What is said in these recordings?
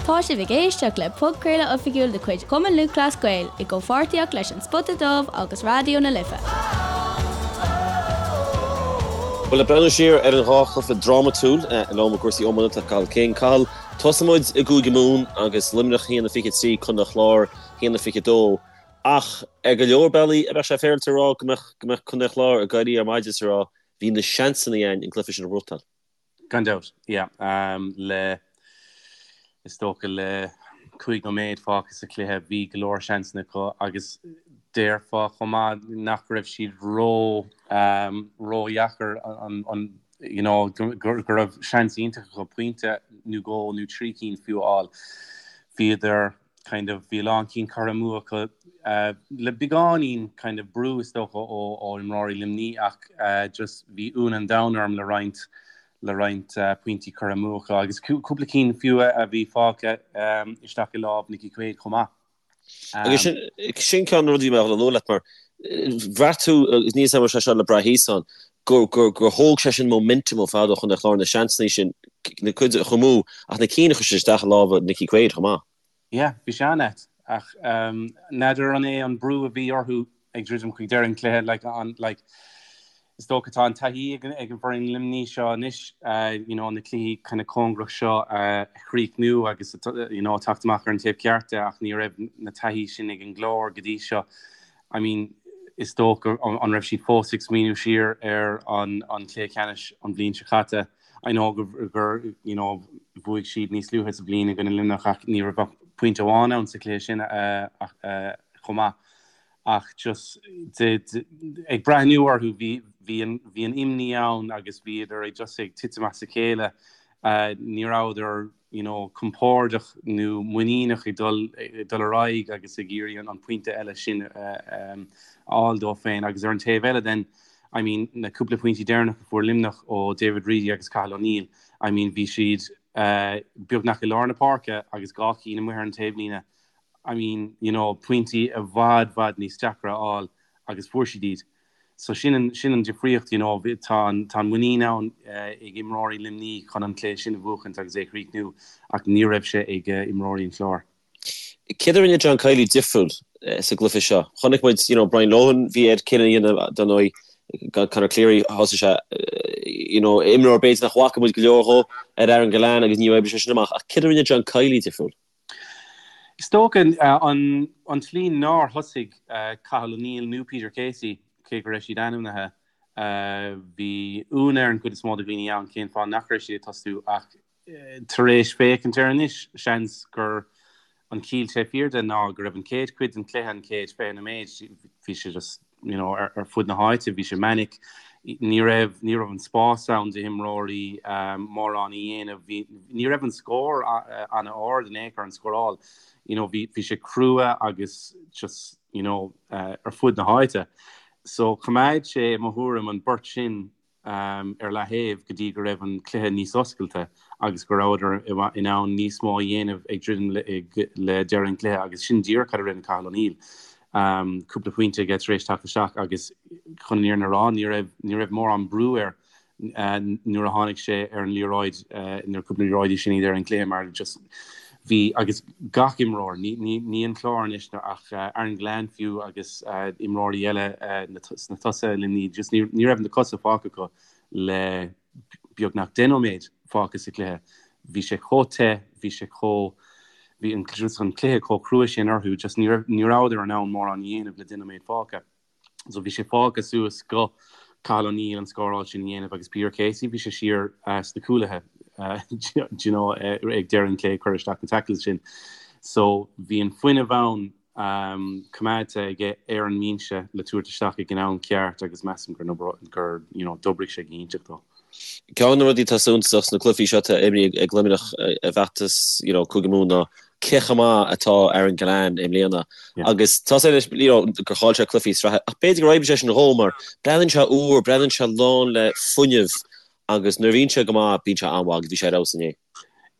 Tá sibh ag éisteacht le podchraoladh oifigiúil de chuid Chumann Lúthchleas Gael i gcomhpháirtíocht leis An Spota Dubh agus Raidió na Life. Bhuel, ag breathnú siar ar an dhá chluiche drámatúil liom i gcúrsaí iomána tá Cathal King. Cathal, tosóidh muid i gCúige Mumhan agus Luimneach 1-23, Contae an Chláir 1-22. Ach ar go leor bealaí, an mbeadh sé féaráilte a rá go mbeadh go mbeadh Contae an Chláir ag éirí ar maidin is ag rá bhí na seansanna againn an cluiche sin a bhuachtáil. Gan dabht, yeah. Le, is dócha le 5 nóiméad fágtha sa chluiche bhí go leor seansanna acu agus déarfá chomh maith nach raibh siad ró, ródheacair an, you know, go raibh seans iontach acu pointe nó dhó nó trí cinn fiú a fháil. Bhíodar kind of bhí a lán cinn curtha amú acu le beagáinín kind of brú is dócha ó ó imreoirí Luimní ach just bhí ionadh an domhain orm le roinnt le roinnt pointí curtha amú acu agus cúpla cinn fiú a bhí fágtha isteach i lámh Nicky Quaid chomh maith. Agus sin sin ceann de na rudaí a bhí mé ag dul a lua leat mar bhraith tú agus níl a fhios agam an raibh sé seo le brath thíos ann gur gur gur thóg sé sin momentum ar fad ó Chontae an Chláir na seansanna sin na cuid a chur amú ach na cinn a chuir siad isteach i lámha Nicky Quaid chomh maith. Yeah, bhí sé an-ait ach n'fheadar an é an brú a bhí orthu ag druidim chuig deireadh an chluiche like an like is dócha tá an taithí ag ag an bhfoireann Luimní seo anois you know na cluichí kind of cóngarach seo a chríochnú agus you know teacht amach ar an taobh ceart de ach ní raibh na taithí sin ag an gClár go dtí seo. I mean is dócha an raibh siad fós ag smaoineamh siar ar an an cluiche ceannais an bhliain seo caite. I know gur you know bhuaigh siad níos luaithe sa bhliain i gcoinne Luimneach ach ní raibh ach pointe amháin ann sa chluiche sin chomh maith. Ach just ag breathnú orthu bhí bhí an bhí an imní ann agus bhíodar ag just ag titim as a chéile. Ní rabhadar you know compordach nó muiníneach ag dul ag dul ar aghaidh agus ag iarraidh an pointe eile sin a fháil dóibh féin agus ar an taobh eile then I mean na cúpla pointí deireanach a fuair Luimneach ó David Reidy agus Cathal O'Neill I mean bhí siad beagnach i lár na páirce agus dhá cinn amuigh ar an taobhlíne I mean you know pointí i bhfad bhfad níos deacra a fháil agus fuair siad iad. So sin an, sin an difríocht, you know, tá an, tá an muinín ann ag imreoirí Luimní chun an cluiche sin a bhuachaint agus é a chríochnú ach ní raibh sé ag imreoirí an Chláir. Céard a rinne John Kiely difriúil sa gcluiche seo? Chonaic muid, you know, Brian Lohan, bhí air cinneadh a dhéanamh dar ndóigh, gan Conor Cleary, thosaigh sé, you know, imreoir b'fhéidir nach bhfaca muid go leor dhó ar Aaron Gillane agus ní oibrigh sé sin amach ach céard a rinne John Kiely difriúil? Is dócha an tslí nár thosaigh Cathal O'Neill nó Peter Casey, cé go raibh siad ainmnithe, bhí ionadh ar an gcuid is mó de dhaoine ann cén fáth nach raibh siad ag tosú ach tar éis féachaint air anois, seans gur an chiall sé fíor de ná go raibh an chéad chuid den chluiche, an chéad 20 nóiméad, bhí sé just you know, ar fud na háite, bhí sé manic, ní raibh, ní raibh an spás ann d'imreoirí mórán a dhéanamh, bhí, ní raibh an scór an-ard in aon chor, an scóráil, you know, bhí, bhí sé crua agus just, you know, ar fud na háite. So choimeád sé, i mo thuairim, an beirt sin ar leaththaobh go dtí go raibh an cluiche níos oscailte agus go rabhadar in ann níos mó a dhéanamh ag druidim le deireadh an chluiche agus sin díreach cad a rinne Cathal O'Neill. Cúpla pointe aige tar éis teacht isteach agus chun an fhírinne a rá ní raibh ní raibh mórán brú air nuair a tháinig sé ar an liathróid nuair cúpla liathróidí sin i ndeireadh an chluiche mar just bhí agus gach imreoir, ní an Clár anois ach Aaron Gillane fiú agus imreoirí eile sna tosaithe i Luimní, just ní raibh na cosa fágtha acu le beagnach 10 nóiméad fágtha sa chluiche. Bhí sé chomh te, bhí sé chomh, bhí an just an cluiche chomh crua sin orthu, just ní raibh, ní rabhadar in ann mórán a dhéanamh le 10 nóiméad fágtha. So bhí sé fágtha suas go Cathal O'Neill an scóráil sin a dhéanamh agus Peter Casey, bhí sé siar sna cúlaithe do you know ag deireadh an chluiche ag cur isteach na tackles sin. So bhí an fuinneamh ann coimeádta aige ar an mbinse le tabhairt isteach ag an am ceart agus measaim gur gur you know d'oibrigh sé go hiontach dó. Ceann de na rudaí atá suntasach sna cluichí seo atá imrithe ag Luimneach i bhfeachtas you know Cúige Mumhan ná cé chomh maith atá Aaron Gillane i mbliana agus tá sé anois you know gur chaill sé cluichí sraithe ach b'fhéidir gur oibrigh sé sin dhó mar breathnaíonn sé úr, breathnaíonn sé lán le fuinneamh agus nuair a bhíonn sé go maith bíonn sé an-mhaith agus bhí sé ar fheabhas inné.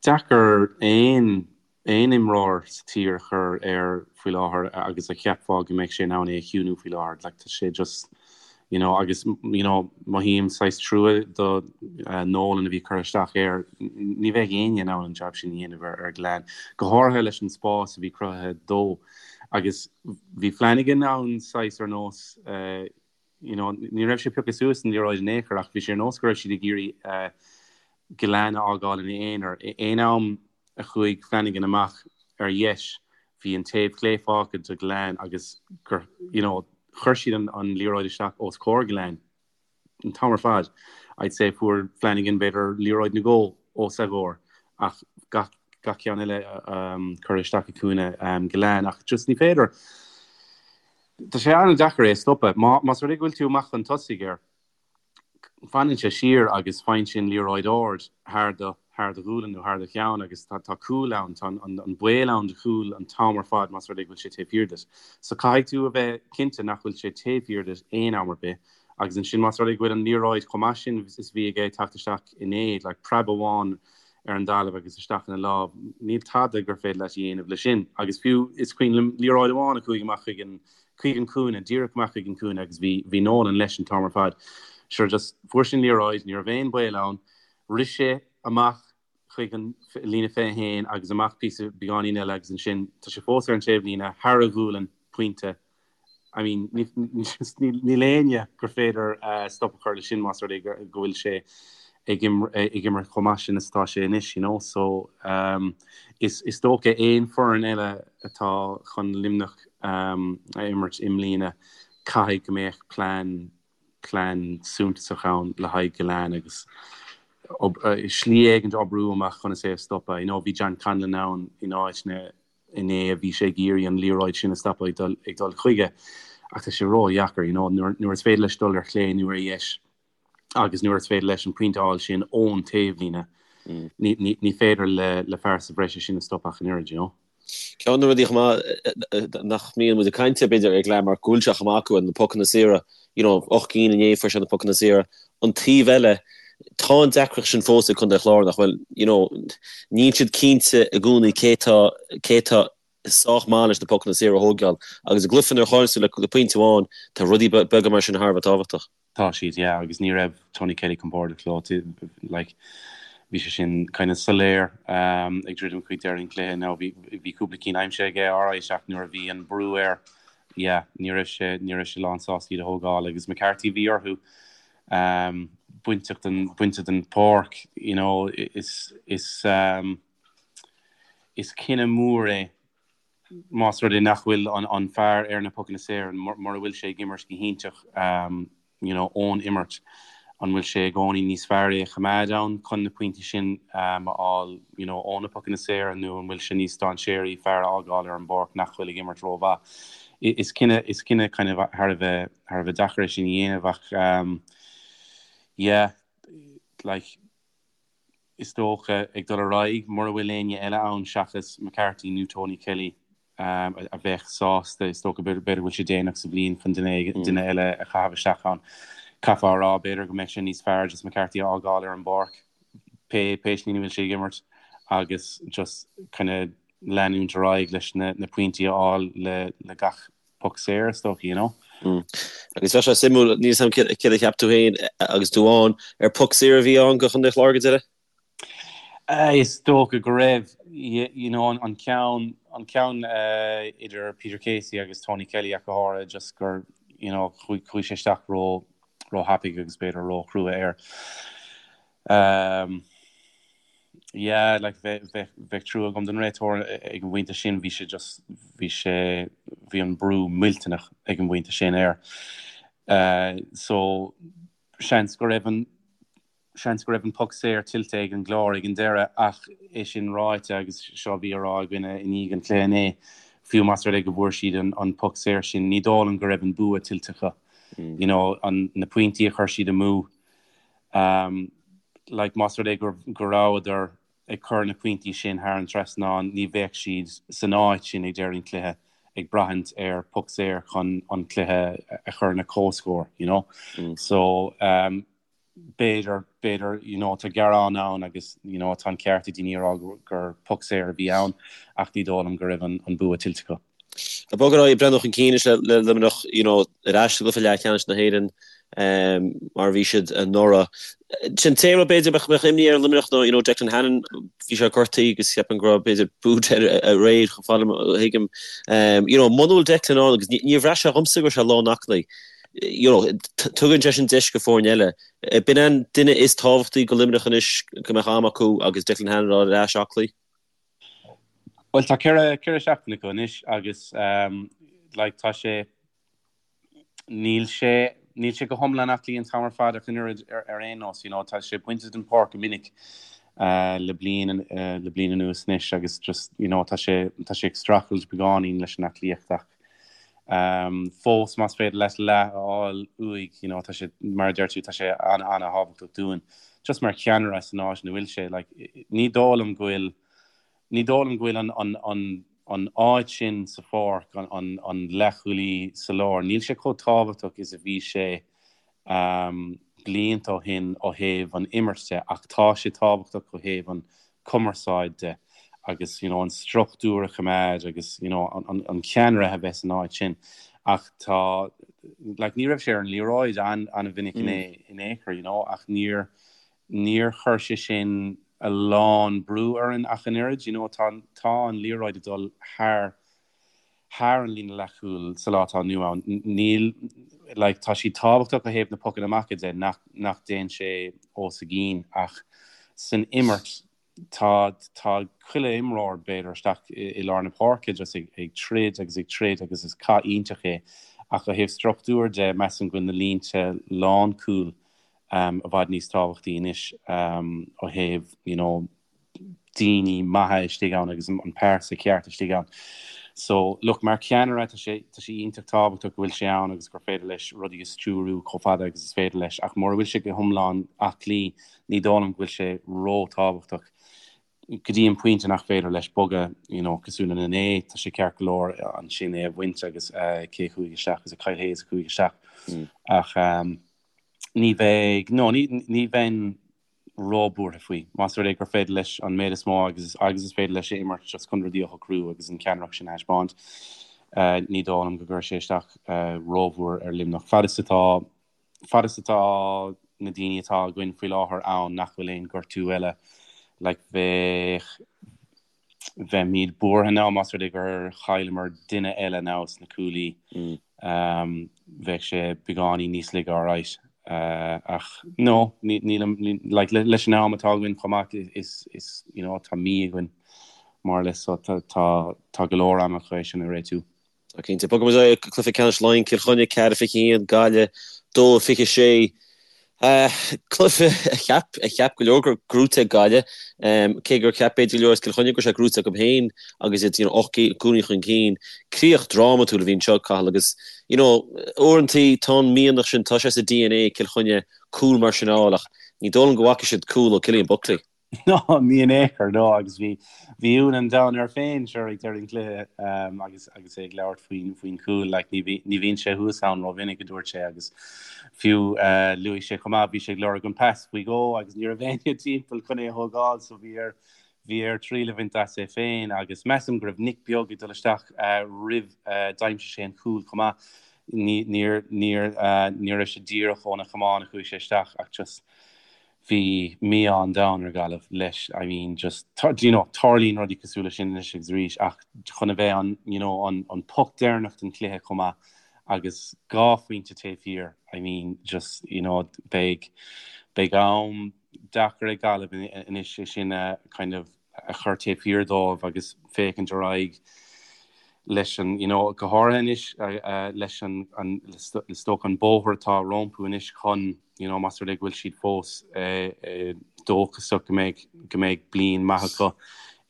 Deacair aon aon imreoir sa tír a chur air faoi láthair agus a cheapfá go mbeadh sé in ann é a chiúnú faoi láthair. Like tá sé just. You know, agus you know, mothaím saghas trua do Nolan a bhí curtha isteach air. Ní bheadh éinne in ann an jab sin a dhéanamh ar ar Gillane, go háirithe leis an spás a bhí cruthaithe dó. Agus bhí Flanagan ann saghas ar nós you know, ní raibh sé pioctha suas an liathróid in aon chor ach bhí sé ar nós go raibh siad ag iarraidh Gillane a fhágáil ina aonar. Aon am a chuaigh Flanagan amach ar dheis, bhí an taobh clé fágtha do Gillane agus gur, you know, chuir siad an an liathróid isteach os comhair Gillane an t-am ar fad. I'd say fuair Flanagan b'fhéidir liathróid nó dhó os a gcomhair ach gach gach ceann eile curtha isteach i gcúinne Gillane ach just ní féidir Tá sé an-deacair é a stopadh. Más rud é go bhfuil tú amach chun tosaigh air, fanann sé siar agus faigheann sé an liathróid ard thar do thar do ghualainn nó thar do cheann agus tá tá cúl ann, tá an an baol ann do chúl an t-am ar fad más rud é go bhfuil sé taobh thiar duit. So caithfidh tú a bheith cinnte nach bhfuil sé taobh thiar duit aon am ar bith agus ansin más rud é go bhfuil an liathróid chomh maith sin is a bhí aige ag teacht isteach inné, like preab amháin ar an dtalamh agus isteach ina lámh, níl tada gur féidir leat a dhéanamh leis sin. Agus fiú is cuimhin liom liathróid amháin a chuaigh amach chuig an chuig an cúinne, díreach amach chuig an cúinne agus bhí bhí Nolan leis an t-am ar fad. Sure just fuair sé an liathróid, ní raibh aon baol ann, rith sé amach chuig an líne 21 agus amach píosa beagáinín eile agus ansin tá sé fós ar an taobhlíne thar a ghualainn, pointe. I mean, níl éinne gur féidir stop a chur leis sin más rud é go bhfuil sé ag imirt chomh maith sin is atá sé anois, you know. So, is is dócha aon foireann eile atá chun Luimneach a imirt i mbliana, caithfidh go mbeadh plean plean suntasach ann le haghaidh Gillane agus slí éigin oibriú amach chun é a stopadh. You know, bhí John Conlon ann in áiteanna inné a bhí sé ag iarraidh an liathróid sin a stopadh ag dul chuige ach tá sé ródheacair, you know, nuair is féidir leis dul ar chlé nó ar dheis agus nuair is féidir leis an pointe a fháil sin ón taobhlíne, ní féidir le fear sa bhreis é sin a stopadh ach an oiread, you know. Ceann de na rudaí chomh maith nach mbíonn muid ag caint air b'fhéidir ar Gillane mar go bhfuil sé chomh maith acu na pocanna saora, you know, 8 gcinn inné fuair sé na pocanna saora. An taobh eile, tá an deacracht sin fós ag Contae an Chláir nach bhfuil, you know, níl siad cinnte i gcónaí cé tá, cé tá sách maith leis na pocanna saora a thógáil agus i gcluiche nuair a chailleann tú le, le pointe amháin, tá rudaí beaga mar sin thar a bheith tábhachtach. Tá siad, yeah, agus ní raibh Tony Kelly compordach leo, like, bhí sé sin kind of soiléir ag druidim chuig deireadh an chluiche. Now bhí, bhí cúpla cinn aimsithe aige, alright, ach nuair a bhí an brú air, yeah, ní raibh sé, ní raibh sé lán sásta iad a thógáil agus McCarthy bhí orthu bainteach den, bainte den pháirc, you know, is, is, is cinneadh mór é más rud é nach bhfuil an, an fear ar na pocanna saora, mura bhfuil sé ag imirt go hiontach, you know, ón imirt, an bhfuil sé i gcónaí níos fearr é a choimeád ann chun na pointí sin a fháil, you know, ó na pocanna saora nó an bhfuil sé níos dainséaraí fear a fhágáil ar an bpáirc nach bhfuil ag imirt rómhaith? Is cinneadh, is cinneadh kind of thar a bheith, thar a bheith deacair é sin a dhéanamh ach yeah, like, is dócha, ag dul ar aghaidh, mura bhfuil éinne eile ann seachas McCarthy nó Tony Kelly a bheadh sásta, is dócha, b'fhéidir go bhfuil sé déanach sa bhliain chun duine eile a chaitheamh isteach ann. Caithfeá a rá, b'fhéidir go mbeadh sé níos fearr just McCarthy a fhágáil ar an bpáirc pé pé slí ina bhfuil sé ag imirt agus just kind of leanúint ar aghaidh leis na pointí a fháil le gach poc saor, is dócha, you know. Agus bheadh sé suimiúil, níl 'fhios a'm céard a cheap tú féin agus tú ann, ar poc saor a bhí ann do Chontae an Chláir go deireadh? Is dócha go raibh, you know, an ceann, an ceann idir Peter Casey agus Tony Kelly ach go háirithe, just gur, you know, chuaigh sé isteach ró, ró-thapaidh agus b'fhéidir ró-chrua air. Yeah, like bheadh, bheadh, bheadh trua agam don réiteoir ag an bpointe sin, bhí sé just, bhí sé, bhí an brú millteanach ag an bpointe sin air. So, seans go raibh an, seans go raibh an poc saor tuillte ag an gClár ag an deireadh ach é sin ráite agus seo a bhí á rá againne i ndiaidh an chluiche inné, fiú más rud é go bhfuair siad an, an poc saor sin, ní dóigh liom go raibh an bua tuillte acu. You know, an, na pointí a chuir siad amú, Like, más rud é go rabhadar ag cur na pointí sin thar an trasnán, ní bheadh siad san áit sin ag deireadh an chluiche ag braithint ar poc saor chun an cluiche a chur ina comhscór, you know. So, b'fhéidir, b'fhéidir, you know, tá gearán ann agus, you know, tá an ceart ag daoine a rá gur poc saor a bhí ann ach ní dóigh liom go raibh an bua tuillte acu. Ag bogadh ar aghaidh, ag breathnú chun cinn anois le Luimneach, you know, ar ais i gcluiche leathcheannais na hÉireann. mar a bhí siad anuraidh. Sin an t-aon rud b'fhéidir a mbeadh imní ar Luimneach ná you know Declan Hannon, bhí sé gortaithe agus ceapaim go raibh b'fhéidir boot air aréir chomh fada a thuigim. You know muna bhfuil Declan ann agus níor bhraith sé dhomsa go raibh sé lán aclaí you know tugann sé sin deis go foirne eile. B'in an duine is tábhachtaí go Luimneach anois go mbeadh am acu agus Declan Hannon ar ais aclaí. Bhuel tá 4 seachtain acu anois agus like tá sé Níl sé, níl sé go hiomlán aclaí an t-am ar fad ach an oiread ar aon nós, you know, tá sé bainte den pháirc go minic le bliain, le bliain anuas anois agus just, you know, tá sé, tá sé ag streachailt beagáinín leis an aclaíocht ach fós más féidir leat leath a fháil uaidh, you know, tá sé, mar a deir tú, tá sé an-an-thábhachtach dúinn. Just mar cheannaire san áit ina bhfuil sé, like, ní dóigh liom go bhfuil, Ní dóigh liom go bhfuil an áit sin sa pháirc, an leathchúlaí sa lár, níl sé chomh tábhachtach is a bhí sé blianta ó shin ó thaobh an imirt de ach tá sé tábhachtach ó thaobh an cumarsáid de agus you know an struchtúr a choimeád agus you know an ceannaire a bheith san áit sin ach tá like ní raibh sé ar an liathróid an-mhinic in aon chor you know ach níor Níor chuir sé sin a lán brú orainn ach an oiread, you know, tá, tá an liathróid ag dul thar, thar an líne leathchúil sa lá atá inniu ann. Níl, like, tá sí tábhachtach ó thaobh na pocanna amach de, nach, nach dtéann sé os a gcionn ach san imirt tá, tá chuile imreoir b'fhéidir isteach i, i lár na páirce just ag, ag troid agus ag troid agus is cath iontach é ach ó thaobh struchtúir de measaim go bhfuil na línte lánchúil i bhfad níos tábhachtaí anois ó thaobh you know daoine maithe istigh ann agus an pearsa ceart istigh ann. So look mar cheannaire tá sé tá sé iontach tábhachtach go bhfuil sé ann agus gur féidir leis rudaí a stiúrú chomh fada agus is féidir leis ach mura bhfuil sé go hiomlán aclaí ní dóigh liom go bhfuil sé ró-tábhachtach go dtí an pointe nach féidir leis bogadh you know cosúil le Nene tá sé ceart go leor ansin é a bhaint agus cé a chuaigh isteach is é Kyle Hayes a chuaigh isteach ach um, Ní bheidh, no, ní, ní bheinn róbhuartha faoi. Más rud é gur féidir leis an méid is mó agus, agus is féidir leis a imirt just chun rudaí a shocrú agus an ceannaireacht sin a thaispeáint, ní dóigh liom go gcuirfidh sé isteach rómhór ar Luimneach. Fad is atá, fad is atá na daoine atá againn faoi láthair ann nach bhfuil aon gortú eile, like bheadh, Bheimid buartha now más rud é gur chailleamar duine eile now sna cúlaí. Bheadh sé beagáinín níos laige alright. Ach no, nílim, like leis an am atá againn chomh maith is, is, you know, tá mí againn more or less so tá, tá go leor ama chun é sin a réitiú. Tá cinnte. Bogfaidh muid ar aghaidh go cluiche ceannais Laighean, Cill Chainnigh 4-21, Gaillimh 2-26. Cluiche a cheap, a cheap go leor go raibh gnóite ag Gaillimh, cé gur cheap b'fhéidir go leor as Cill Chainnigh go raibh sé gnóite acu féin agus iad you know 8 gcúilín chun cinn. Críoch drámatúil a bhí anseo, Cathal, agus you know uaireantaí tá an mianach sin, tá sé sa DNA ag Cill Chainnigh cúl mar sin a fháil ach ní dóigh liom go bhfaca siad cúl ó Cillian Buckley. No, ní in aon chor, no, agus bhí, bhí ionadh an domhain air féin, sure, ag deireadh an chluiche, agus, agus é ag labhairt faoin, faoin chúl, like, ní bhí, ní bhíonn sé thuas ann rómhinic, a dúirt sé, agus fiú, luaigh sé chomh maith, bhí sé ag lorg an pas faoi dhó agus ní raibh éinne timpeall chun é a thógáil, so bhí air, bhí air triail a bhaint as é féin, agus measaim go raibh Nick Beag ag dul isteach, roimh, d'aimsigh sé an cúl chomh maith, ní, níor, níor, ní raibh sé díreach óna chamán a chuaigh sé isteach ach just, Bhí mí-ádh an domhain ar Ghaillimh leis, I mean just, you know, tarlaíonn rudaí cosúil leis sin anois agus arís ach chun a bheith an, you know, an, an poc deireanach den chluiche chomh maith agus dhá phointe taobh thiar, I mean just, you know, beidh, beidh am deacair ag Gaillimh anois é sin a kind of a chur taobh thiar dóibh agus féachaint ar aghaidh leis an, you know, go háirithe anois leis an, an, is dócha an bóthar atá rompu anois chun, you know, más rud é go bhfuil siad fós dóchasach go mbeidh, go mbeidh bliain maith acu,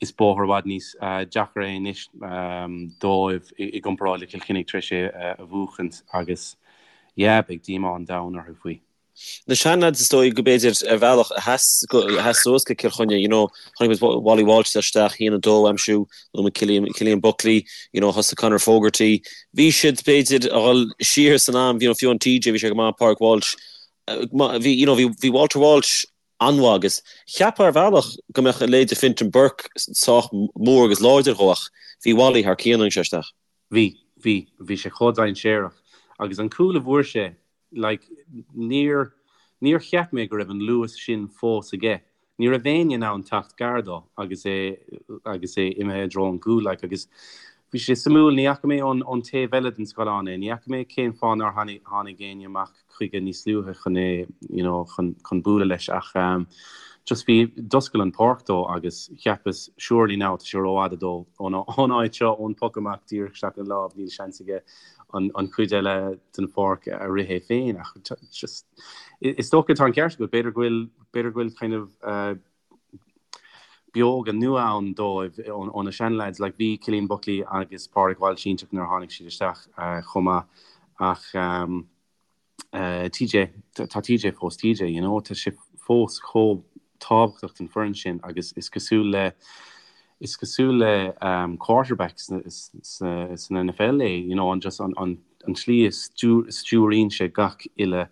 is bóthar i bhfad níos deacra é anois dóibh i gcomparáid le Cill Chainnigh tar éis é a bhuachaint agus yeah, beidh díomá an domhain orthu faoi. Na seanleaids is dóigh go b'fhéidir ar bhealach a sheas a sheas suas go Cill Chainnigh, you know, chonaic muid Wally Walsh isteach, 1-2 a aimsiú, luaigh muid Cillian, Cillian Buckley, you know, thosaigh Conor Fogarty. Bhí siad b'fhéidir a dhul siar san am, you know, fiú an TJ, bhí sé go maith, Pádraig Walsh, bhí, you know, bhí, bhí Walter Walsh an-mhaith agus cheapfá ar bhealach go mbeadh a leithéid de Fintan Burke sách mór agus láidir dhó ach bhí Wally thar cionn nuair a tháinig sé isteach. Bhí, bhí, bhí sé chomh dainséarach agus an cúl a bhfuair sé. Like, níor, níor cheap mé go raibh an luas sin fós aige. Ní raibh éinne in ann teacht gar dó agus é, agus é imithe i dtreo an chúil, like, agus bhí sé suimiúil, ní fhaca mé ón, ón taobh eile den scáileán é, ní fhaca mé cén fáth nár tháinig, tháinig éinne amach chuige níos luaithe chun é, you know, chun, chun bualadh leis ach ehm, just bhí, d'oscail an pháirc dó agus cheapas surely now tá sé rófhada dó ón, ón áit seo, ón poc amach díreach isteach ina lámh, níl seans aige an, an chuid eile den pháirc a rith é féin ach just, is dócha tá an ceart agat, b'fhéidir go bhfuil, b'fhéidir go bhfuil kind of eh, beoga nua ann dóibh ó na seanleaids. Like bhí Cillian Buckley agus Pádraig Walsh iontach nuair a tháinig siad isteach chomh maith ach TJ, tá TJ fós TJ, you know, tá sé fós chomh tábhachtach don foireann sin agus is cosúil le is cosúil le quarterback san NFL é, you know, an just an an tslí a stiúraíonn sé gach uile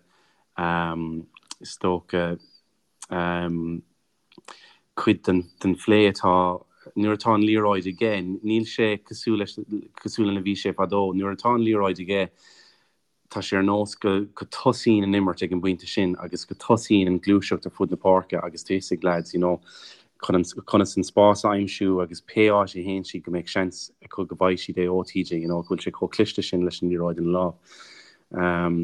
is dócha cuid den phlé atá nuair atá an liathróid aige, níl sé cosúil leis, cosúil lena bhí sé fadó. Nuair atá an liathróid aige, tá sé ar nós go go tosaíonn an imirt ag an bpointe sin agus go tosaíonn an gluaiseacht ar fud na páirce agus tá fhios ag leaids, you know, chun an, conas an spás a aimsiú agus pé áit a théann siad go mbeidh seans acu go bhfaighidh siad é ó TJ, you know, go bhfuil sé chomh cliste sin leis an liathróid ina lámh.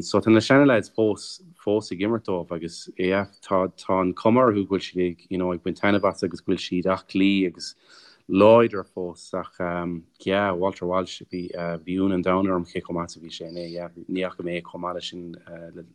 So tá na seana-leaids fós, fós ag imirt dóibh agus yeah, tá, tá an cuma orthu go bhfuil siad ag, you know, ag baint taitneamh as agus go bhfuil siad aclaí agus láidir fós ach yeah, Walter Walsh, bhí, bhí ionadh an domhain orm cé chomh maith is a bhí sé inné, yeah, ní fhaca mé é chomh maith leis sin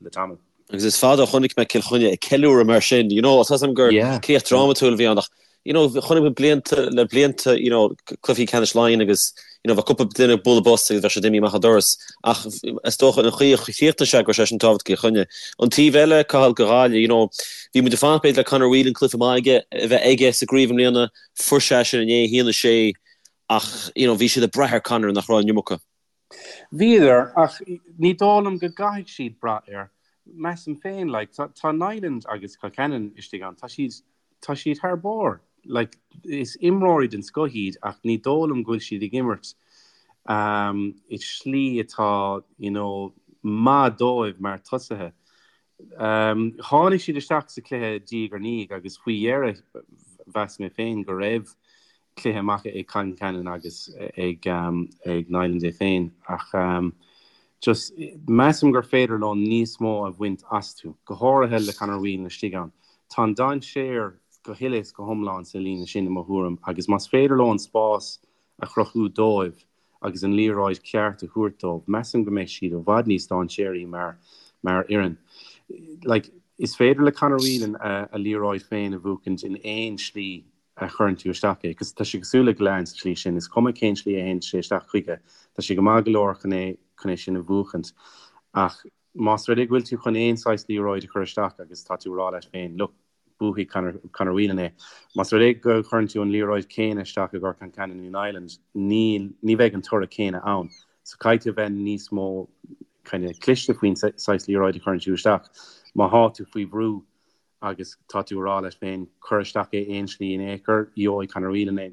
le tamall. Agus is fada ó chonaic mé Cill Chainnigh ag ceiliúradh mar sin, you know, tá 'fhios a'm gur críoch drámatúil a bhí ann ach, you know, chonaic mé blianta le blianta, you know, cluichí ceannais Laighean agus, you know, bheadh cúpla duine ag bualadh bos agus bheadh siad imithe amach an doras. Ach is dócha an chaoi a chríochnaigh sé go raibh sé sin tábhachtach do Chill Chainnigh. An taobh eile, Cathal, do Ghaillimh, you know, bhí muid ag fanacht b'fhéidir le Conor Whelan cluiche maith aige, a bheith aige sa gcraobh i mbliana, fuair sé sin inné, 1-6, ach, you know, bhí siad ag brath ar Conor nach raibh an iomarca. Bhíodar, ach ní dóigh liom go gcaithfidh siad brath air. Measaim féin, like, tá, tá Niland agus Concannon istigh ann, tá siad, tá siad thar barr. Like, is imreoirí den scoth iad ach ní dóigh liom go bhfuil siad ag imirt um, i slí atá, you know, maith dóibh mar tosaithe. Um, tháinig siad isteach sa chluiche diaidh ar ndiaidh agus faoi dheireadh mheas mé féin go raibh cluiche maith ag Concannon agus ag ag Niland é féin ach just measaim gur féidir leo níos mó a bhaint astu, go háirithe le Conor Whelan istigh ann. Tá an dainséar go huile is go hiomlán sa líne sin i mo thuairim agus más féidir leo an spás a chruthú dóibh agus an liathróid ceart a thabhairt dóibh, measaim go mbeidh siad i bhfad níos dainséaraí mar mar fhoireann. Like, is féidir le Conor Whelan a a liathróid féin a bhuachaint in aon slí a chuireann tú isteach é. Tá sé cosúil le Gillane sa tslí sin, is cuma cén slí a théann sé isteach chuige, tá sé go maith go leor chun é chun é sin a bhuachaint. Ach más rud é go bhfuil tú chun aon saghas liathróid a chur isteach agus tá tú ag rá leat féin, look, buafaidh Conor, Conor Whelan é. Más rud é go gcuireann tú an liathróid céanna isteach i gcomhair Concannon nó Niland, níl, ní bheidh an toradh céanna ann. So caithfidh tú a bheith níos mó kind of cliste faoin saghas liathróid a chuireann tú isteach. Má thá tú faoi bhrú, agus tá tú ag rá leat féin, cuir isteach é aon slí in aon chor, gheobhaidh Conor Whelan é.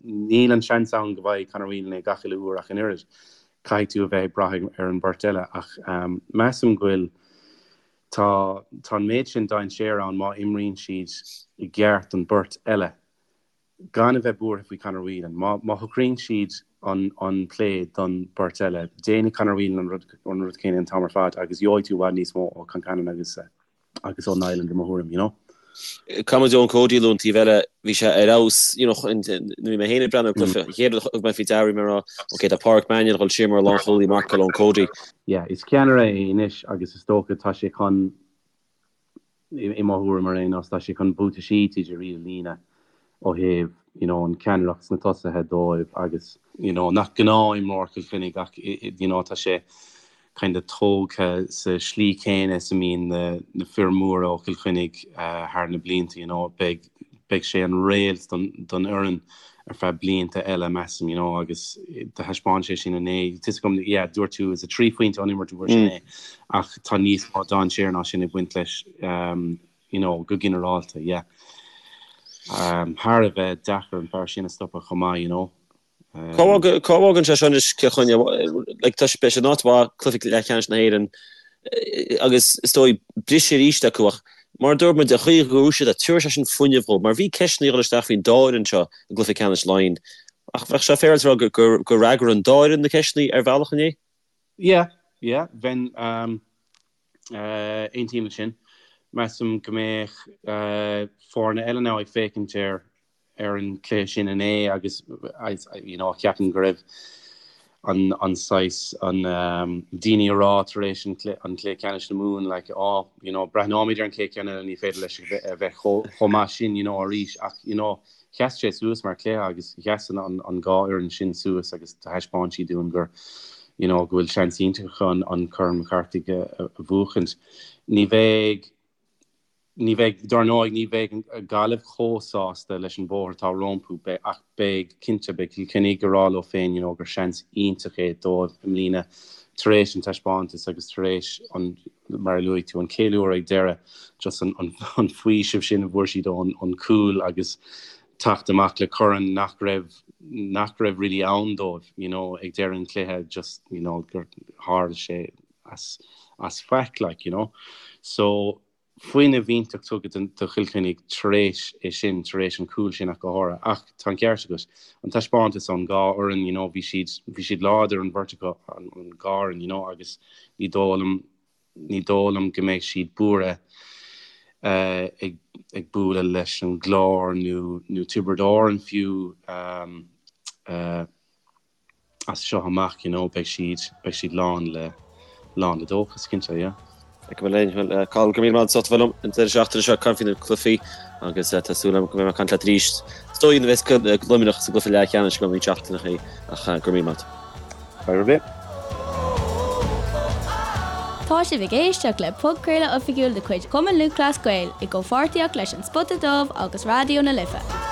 Níl an seans ann go bhfaighidh Conor Whelan é gach uile uair ach an oiread. Caithfidh tú a bheith ag brath ar an bheirt eile ach measaim go bhfuil, tá, tá an méid sin dainséar ann má imríonn siad i gceart don beirt eile. gan a bheith buartha faoi Conor Whelan. Má má shocraíonn siad an an plé don beirt eile, déanfaidh Conor Whelan an rud an rud céanna an t-am ar fad agus gheobhaidh tú i bhfad níos mó ó Concannon agus agus ó Niland i mo thuairim, you know. Caithfidh muid Eoin Cody a lua an taobh eile, bhí sé ar fheabhas, you know, nuair a bhí mé féin ag breathnú ar an gcluiche, an chéad rud a thug mé faoi deara, bhí mé ag rá, ok, tá Páraic Mannion ag dul siar mar lánchúlaí, marcáil Eoin Cody. Yeah, is ceannaire é anois agus is dócha tá sé chun i mo thuairim ar aon nós, tá sé chun buataisí TJ Reid a líonadh ó thaobh you know an ceannaireacht sna tosaithe dóibh agus, you know nach gnáth-imreoir Chill Chainnigh ach you know tá sé kind of tógtha sa slí chéanna is a mbíonn na na fir mhóra ó Chill Chainnigh thar na blianta you know beidh beidh sé an réalt don don fhoireann ar feadh blianta eile measaim you know agus do thaispeáin sé sin inné. Tá 'fhios agam yeah dúirt tú is 3 phointe ón imirt a fuair sé inné ach tá níos mó dainséar ná sin ag baint leis um, you know go ginearálta yeah. Um, thar a bheith deacair an fear sin a stopadh chomh maith you know. Cá bhfágann sé seo anois Cill Chainnigh? Like, tá sé, beidh sé in áit mhaith, cluiche leathcheannais na hÉireann. Agus is dóigh, briseadh arís acu ach mar a dúirt muid, an chaoi a bhuaigh siad, tabharfaidh sé sin fuinneamh dhóibh mar bhí ceisteanna ag dul isteach faoin dá fhoireann seo i gcluiche ceannais Laighean. Ach bheadh sé féaráilte a rá gur fhreagair an dá fhoireann na ceisteanna ar bhealach inné? Yeah, yeah, bheinn, aontaím leis sin. Measaim go mbeadh foirne eile now ag féachaint ar ar an cluiche sin inné agus you know ceapaim go raibh an an saghas an daoine ag rá tar éis an an cluiche ceannais na Mumhan like oh you know breathnóimid ar an chéad cheann eile ní féidir leis a bheith chomh maith sin you know arís ach you know sheas sé suas mar chluiche agus sheas an an an dhá fhoireann sin suas agus thaispeáin siad dúinn gur you know go bhfuil seans iontach acu an an Corn McCarthy a a bhuachaint. Ní bheidh Ní bheidh, dar ndóigh, ní bheidh Gaillimh chomh sásta leis an bhóthar atá rompu, ach beidh, cinnte, beidh Cill Chainnigh ag rá leo féin, you know, gur seans iontach é dóibh i mbliana tar éis an taispeántas agus tar éis an, mar a luaigh tú, an ceiliúradh ag deireadh, just an, an, an faoiseamh sin a bhfuair siad ón, ón cúl agus teacht amach le corn nach raibh, nach raibh really ann dóibh, you know, ag deireadh an chluiche, just, you know, gur tharla sé. as as faic like you know. So fuinneamh iontach tugtha do Chill Chainnigh tar éis é sin, tar éis an cúl sin ach go háirithe. Ach tá an ceart agat, an taispeántas ón dhá fhoireann you know bhí siad bhí siad láidir an bheirt acu an dhá fhoireann you know agus ní dóigh liom ní dóigh liom go mbeidh siad buartha ag ag bualadh leis an gClár nó nó Tiobraid Árann fiú as seo amach, you know, beidh siad, beidh siad lán le, lán le dóchas, cinnte, yeah. Feicfidh muid linn. Bhuel, Cathal, go raibh míle maith agat as ucht a bheith liom an deireadh seachtaine seo ag caint faoi na cluichí agus tá súil agam go mbeidh mé ag caint leat arís. Is dóigh nuair a bheas Luimneach sa gcluiche leathcheannais i gceann roinnt seachtaineachaí ach go raibh míle maith agat. Fadhb ar bith. Tá sibh ag éisteacht le podchraoladh oifigiúil de chuid Chumann Lúthchleas Gael i gcomhpháirtíocht leis An Spota Dubh agus Raidió na Life.